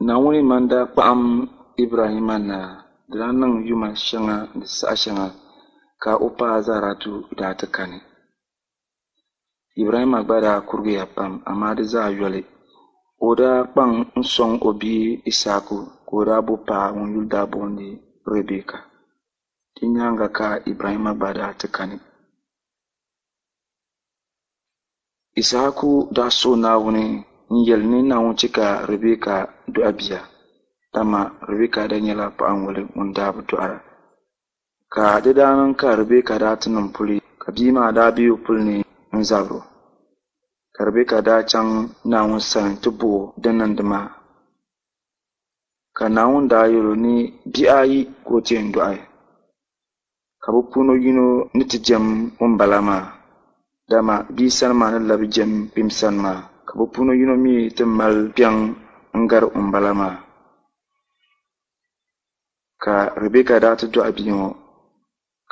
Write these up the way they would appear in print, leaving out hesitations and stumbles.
Naawuni ma n-daa kpaɣim Ibrahimma na, di daa niŋ yuma shɛŋa ni saha shɛŋa ka o paɣa Zaratu daa ti kani. Ibrahimma gba daa kurigiya pam, amaa di zaa yoli, o daa kpaŋ n-sɔŋ o bia Issahaku ka o daa bo paɣa ŋun yuli daa boondi Ribɛka. Di nyaaŋa ka Ibrahimma gba daa ti kani. Issahaku daa suhi Naawuni n-yɛli ni Naawuni chɛ ka Ribɛka dɔɣi bia, dama Ribɛka daa nyɛla paɣiŋɔli ŋun daa bi dɔɣira. Ka di daa niŋ ka Ribɛka daa ti niŋ puli, ka bia maa daa be o puli ni n-zabir o. Ka Ribɛka daa chaŋ Naawuni sani nti bɔh o din niŋdi maa. Ka Naawuni daa yɛl o ni bihi ayi ka o ti yɛn dɔɣi, ka bɛ puuni yino ni ti jɛm ŋumbala maa, dama bia sani maa ni labi jɛm kpim sani maa, ka bɛ puuni yino mi ti mali kpiɔŋ n-gari ŋumbala maa. Ka Ribɛka daa ti dɔɣi bia ŋɔ,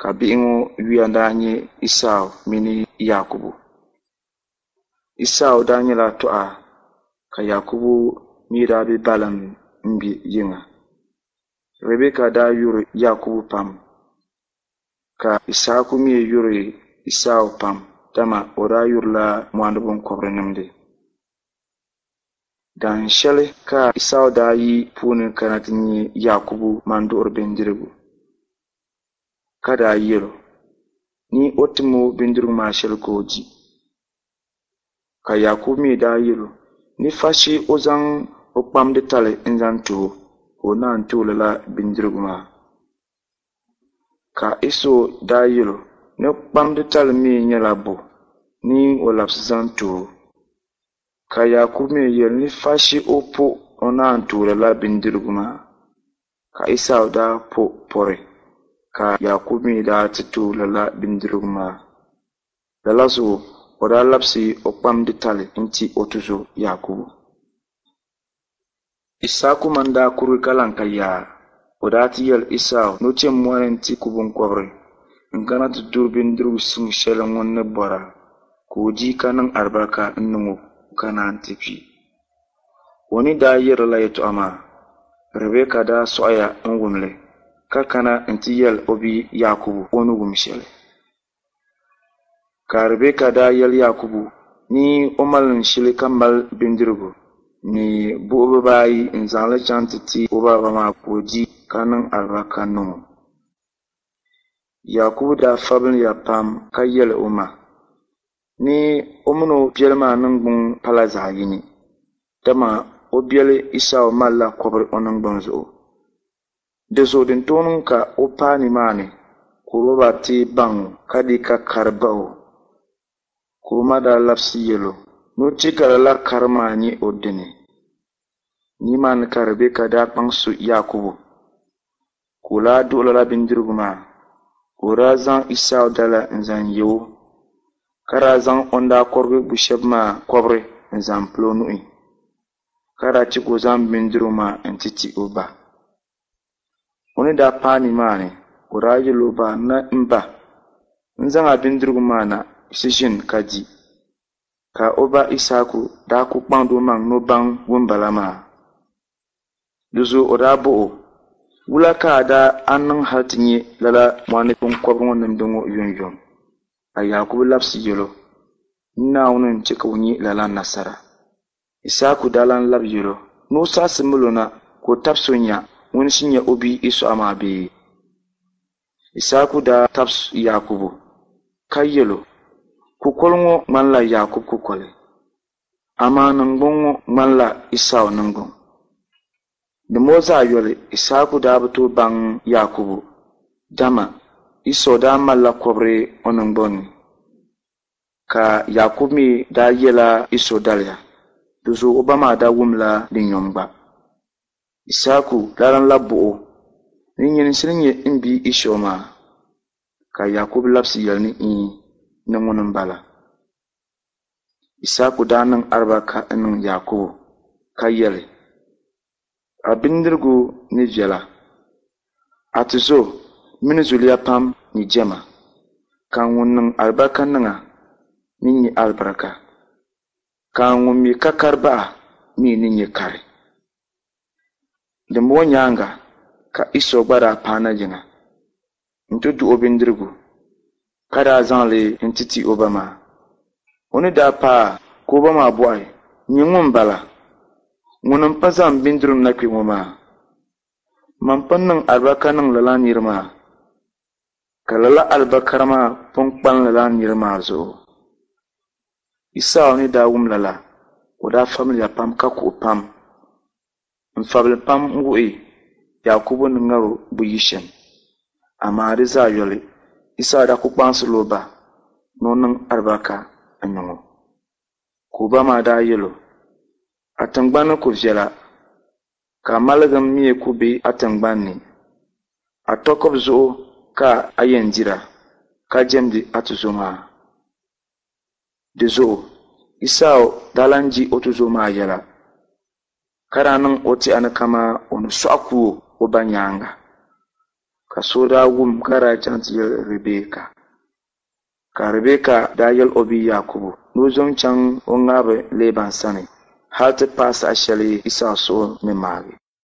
ka bihi ŋɔ yuya daa nyɛ Isau mini Yaakubu. Isau daa nyɛla tɔha, ka Yaakubu mi daa be balim m-be yiŋa. Ribɛka daa yuri Yaakubu pam, ka Issahaku mi yuri Isau pam, dama o daa yurila mɔɣuni biŋkɔbiri nimdi. Dahin shɛli ka Isau daa yi puuni kana ti nya Yaakubu manduɣiri bindirigu, ka daa yɛl o ni o tim o bindirigu maa shɛli ka o di. Ka Yaakubu mi daa yɛl o ni fashi o zaŋ o kpamdi tali n-zaŋ ti o, ka o naan ti o lala bindirigu maa. Ka Iso daa yɛl o ni kpamdi tali mi nyɛla bo ni o labisi zaŋ ti o. Ka Yaakubu mi yɛli ni fashi o po o naan ti o lala bindirigu maa. Ka Isau daa po pɔri, ka Yaakubu mi daa ti ti o lala bindirigu maa. Lala zuɣu o daa labisi o kpamdi tali nti o tuzo Yaakubu. Issahaku ma n-daa kurigi ka lan ka yaa. O daa ti yɛli Isau ni o chɛ mɔɣu ni nti ku biŋkɔbiri n-kana ti duri bindirigu suŋ shɛli ŋun ni bɔra, ka o di ka niŋ alibarika n-niŋ o ka naan ti kpi. O ni daa yɛri lala yɛtɔɣa maa, Ribɛka daa sɔɣiya n-wum li, ka kana nti yɛl o bia Yaakubu o ni wum shɛli. Ka Ribɛka daa yɛli Yaakubu ni o malim shili ka mali bindirigu ni buhi bibaayi n-zaŋ li chaŋ ti ti o baaba maa ka o di ka niŋ alibarika niŋ o. Yaakubu daa fabiliya pam ka yɛli o ma ni o min o biɛli maa niŋgbuŋ pala zaɣ yini, dama o biɛli Isau malila kɔbiri o niŋgbuŋ zuɣu. Di zuɣu din tooi niŋ ka o paai nimaani ka o baba ti baŋ o ka di ka kari bah o. Ka o ma daa labisi yɛl o ni o chɛ ka lala kari maa nyɛ o dini. Nimaani ka Ribɛka daa kpaŋsi Yaakubu ka o daa duɣi lala bindirigu maa, ka o daa zaŋ Isau dala n-zaŋ ye o, ka daa zaŋ o ni daa kɔrigi bu shɛba maa kɔbiri n-zaŋ pili o nuhi. Ka daa chɛ ka o zaŋ bindirigu maa nti ti o ba. O ni daa paai nimaani, o daa yɛl o ba ni, M ba, n zaŋ a bindirigu maa na ti ʒini ka di. Ka o ba Issahaku daa kul kpaŋdi omaŋ ni o baŋ ŋumbala maa. Di zuɣu o daa bɔh o, Wula ka a daa a niŋ hal ti nya lala mɔɣu ni biŋkɔbiri ŋɔ nimdi ŋɔ yomyom? Ka Yaakubu labisi yɛl o, N Naawuni n-chɛ ka o nya lala nasara. Issahaku daa lan labi yɛl o ni o saɣisi mil o na ka o tabisi o nya ŋuni n-shii nyɛ o bia Esau maa bee? Issahaku daa tabisi Yaakubu ka yɛl o, Kukoli ŋɔ ŋmanila Yaakubu kukoli, amaa niŋgbuŋ ŋɔ ŋmanila Esau niŋgbuŋ. Dimbɔŋɔ zaa yoli, Issahaku daa bi tooi baŋ Yaakubu, dama Esau daa malila kɔbiri o niŋgbuŋ ni. Ka Yaakubu mi daa yɛla Iso daliya, di zuɣu o ba maa daa wumla di nyom gba. Issahaku daa lan labi bɔh o, Ni nyini n-shiri nyɛ m bia Iso maa? Ka Yaakubu labisi yɛli ni Iin, ni ŋuni m-bala. Issahaku daa niŋ alibarika n-niŋ Yaakubu ka yɛli, A bindirigu ni viɛla, a tizo mini zuliya pam ni jɛma, ka ŋun niŋ alibarika niŋ a ni nya alibarika, ka ŋun mi ka kari bahi a mi ni nya kari. Dimbɔŋɔ nyaaŋa ka Iso gba daa paana yiŋa nti duɣ o bindirigu, ka daa zaŋ li nti ti o ba maa. O ni daa paai ka o ba maa bɔhi, Nyin ŋuni m-bala? Ŋuni m-pun zaŋ bindirigu na kpe ŋɔ maa? Man pun niŋ alibarika niŋ lala nir maa, ka lala alibarika maa pun kpalim lala nir maa zuɣu. Isau ni daa wum lala, o daa fabiliya pam ka kuhi pam. N-fabili pam n-wuhi Yaakubu ni ŋar o buyi shɛm. Amaa di zaa yoli, Isau daa kul kpaŋsirila o ba ni o niŋ alibarika n-niŋ o. Ka o ba maa daa yɛl o, A tiŋgbani ni ku viɛla, ka a maligim mi ku be a tiŋgbani ni. A tɔkib zuɣu ka a yɛn dira, ka jɛmdi a tuzo maa. Di zuɣu Isau daa lan je o tuzo maa yɛla, ka daa niŋ o tɛha ni kaman o ni sɔɣi ku o o ba nyaaŋa. Ka so daa wum ka daa chaŋ ti yɛli Ribɛka. Ka Ribɛka daa yɛl o bia Yaakubu ni o zom chaŋ o ŋahiba Leeban sani hal ti paai saha shɛli Isau suhu ni maagi.